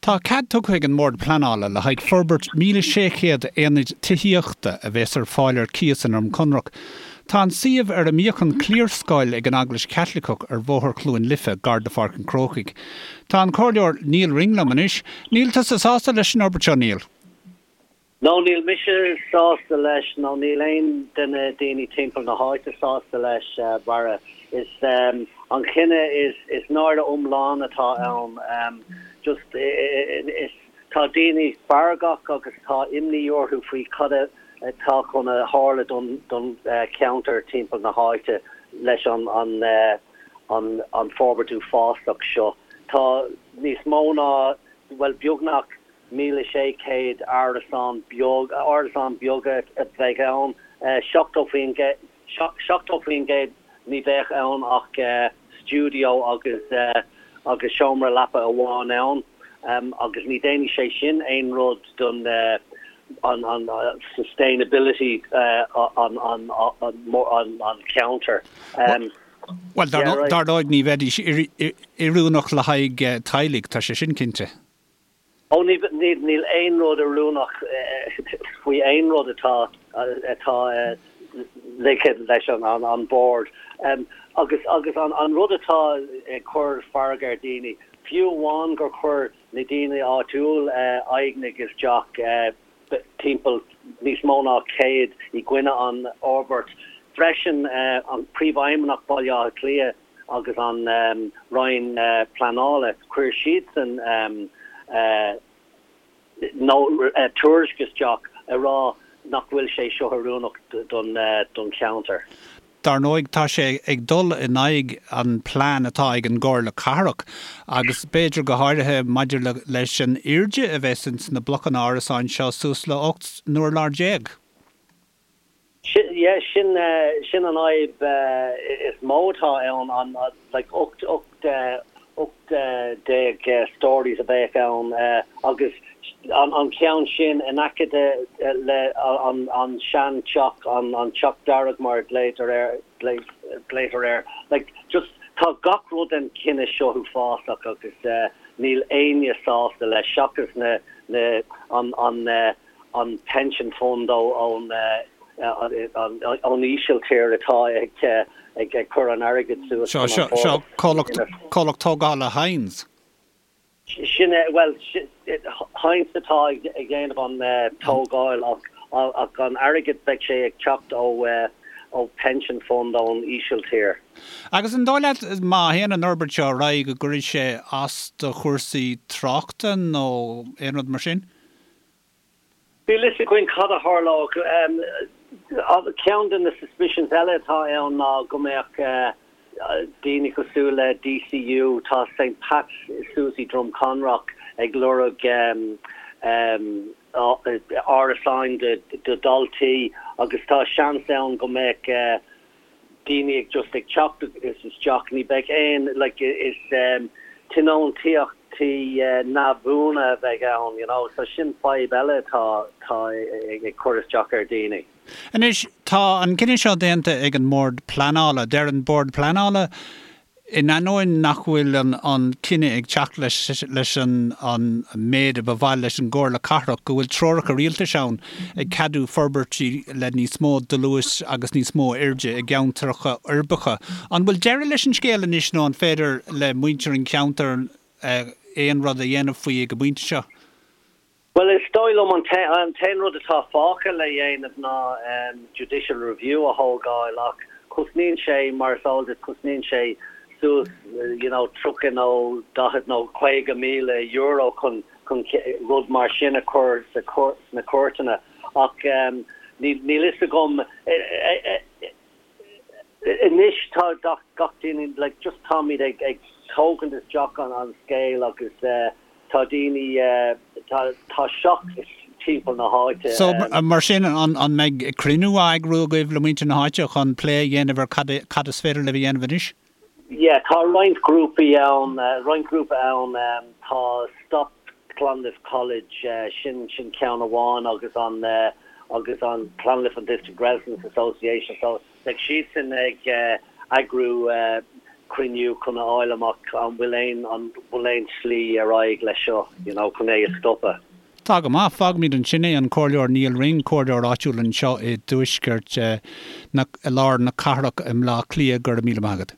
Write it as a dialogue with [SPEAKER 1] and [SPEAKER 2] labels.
[SPEAKER 1] Tá cead tugtha ag an mBord Pleanála le haghaidh forbairt 1,600 aonaid tithíochta a bheas ar fáil ar cíos i nDroim Conrach. Tá an suíomh ar a mbíodh an cliarscoil ag an Eaglais Chaitliceach ar Bhóthar Chluain Life, gar do Pháirc an Chrócaigh. Tá an Comhairleoir Nial Ring liom anois. Níl tusa sásta leis an fhorbairt seo, Nial?
[SPEAKER 2] No, níl mise sásta leis, nó níl aon de na daoine timpeall na háite sásta leis, Barra. Is an chinneadh is, is náire iomlán atá ann. Just, is, tá daoine feargach agus tá imní orthu faoi cad atá chun a tharla don, don cheantar timpeall na háite leis an, an, an, an forbairt uafásach seo. Tá níos mó ná, bhuel, beagnach 1,600 árasán beag, árasán beaga a bheidh ann, 70%, 70% ní bheadh ann ach stiúideo agus agus seomra leapa amháin ann agus ní déanfaidh sé sin aon rud don an an sustainability an an an cheantair.
[SPEAKER 1] Bhuel, dar ndóigh ní bheidís oiriúnach le haghaidh teaghlaigh, tá sé sin cinnte.
[SPEAKER 2] Ó, níl aon rud oiriúnach faoi aon rud atá atá ligthe leis an bord. Agus agus an rud atá ag cur fearg ar daoine, fiú amháin gur chuir na daoine áitiúil aighneacht isteach timpeall níos mó ná 100 i gcoinne an fhorbairt. Freisin an Príomhfheidhmeannach Baile Átha Cliath, agus an Roinn Pleanála, chuir siadsan tuairisc isteach ag rá nach bhfuil sé seo oiriúnach don cheantar.
[SPEAKER 1] Dar ndóigh, tá sé ag dul in aghaidh an plean atá ag an gComhairle Cathrach agus b'fhéidir go háirithe maidir leis an airde a bheas ins na blocanna árasáin seo suas le 18 n-urlár.
[SPEAKER 2] Sin, yeah, sin, sin an fhadhb is mó atá ann, an, like, 18, 18 stories a bheadh ann agus an, an ceann sin in aice de, le an, an sean teach, an, an teach dearg mar a glaoitear air, glaoitear air, like, just tá gach rud den chinneadh seo uafásach agus níl éinne sásta leis seachas na, na, an, an, an pension fund ón Ísiltír atá ag cur an airgid suas
[SPEAKER 1] chun an Seo comhlacht tógála Hines.
[SPEAKER 2] Sin é, bhuel, Hines atá ag déanamh an tógáil ach an airgead beidh sé ag teacht ó pension fund ón Ísiltír.
[SPEAKER 1] Agus an dóigh leat má théann an fhorbairt seo ar aghaidh go gcuirfidh sé as do chúrsaí tráchta nó aon rud mar sin?
[SPEAKER 2] Níl fhios againn cad a tharlódh. Ceann de na suspicions eile atá ann ná go mbeadh daoine cosúil le DCU, tá St Pat's suas i Droim Conrach ag lorg árasáin do dhaltaí agus tá seans ann go mbeadh daoine ag just ag teacht isteach, ní bheidh aon, like, is tionóntaíochtaí neamhbhuana a bheidh ann, you know, so sin fadhb eile atá, atá ag cur isteach ar
[SPEAKER 1] dhaoine. Anois, tá an cinneadh seo déanta ag an mBord Pleanála. Deir an Bord Pleanála In ainneoin nach bhfuil an cinneadh ag teacht leis an méid a ba mhaith leis an gComhairle Cathrach, go bhfuil treoracha rialtais ann ag ceadú forbairtí le níos mó dlúis agus níos mó airde i gceantracha uirbeacha. An bhfuil deireadh leis an scéal anois nó an féidir le muintir an cheantair aon rud a dhéanamh faoi ag an bpointe seo?
[SPEAKER 2] Bhuel, is dóigh liom an t-aon rud atá fágtha le dhéanamh ná judicial review a thógáil ach cosnaíonn sé, mar is eol duit, cosnaíonn sé suas you know 30 nó 40 nó 50,000 euro chun chun rud mar sin a chur sa sna cúirteanna ach níl níl fhios agam Anois tá gach duine, like, just táimid ag ag tógaint isteach an an scéal agus tá daoine, tá tá shock timpeall na háite.
[SPEAKER 1] So, mar sin, an an mbeidh cruinniú á eagrú agaibh le muintir na háite chun plé a dhéanamh ar cad cad is féidir libh a dhéanamh anois?
[SPEAKER 2] Yeah, tá roinnt grúpaí ann, roinnt grúpa ann, tá Stop Clonliffe College, sin sin ceann amháin agus an agus an Clonliffe and District Residents Association so beidh siadsan ag eagrú. cruinniú chun a fháil amach an bhfuil aon, an bhfuil aon slí ar aghaidh leis seo, you know, chun é a stopadh.
[SPEAKER 1] Tá go maith. Fágfaimid ansin é, an Comhairleoir Nial Ring, Comhairleoir áitiúil anseo i dtuaisceart na, i lár na cathrach i mBleá Cliath. Go raibh míle maith agat.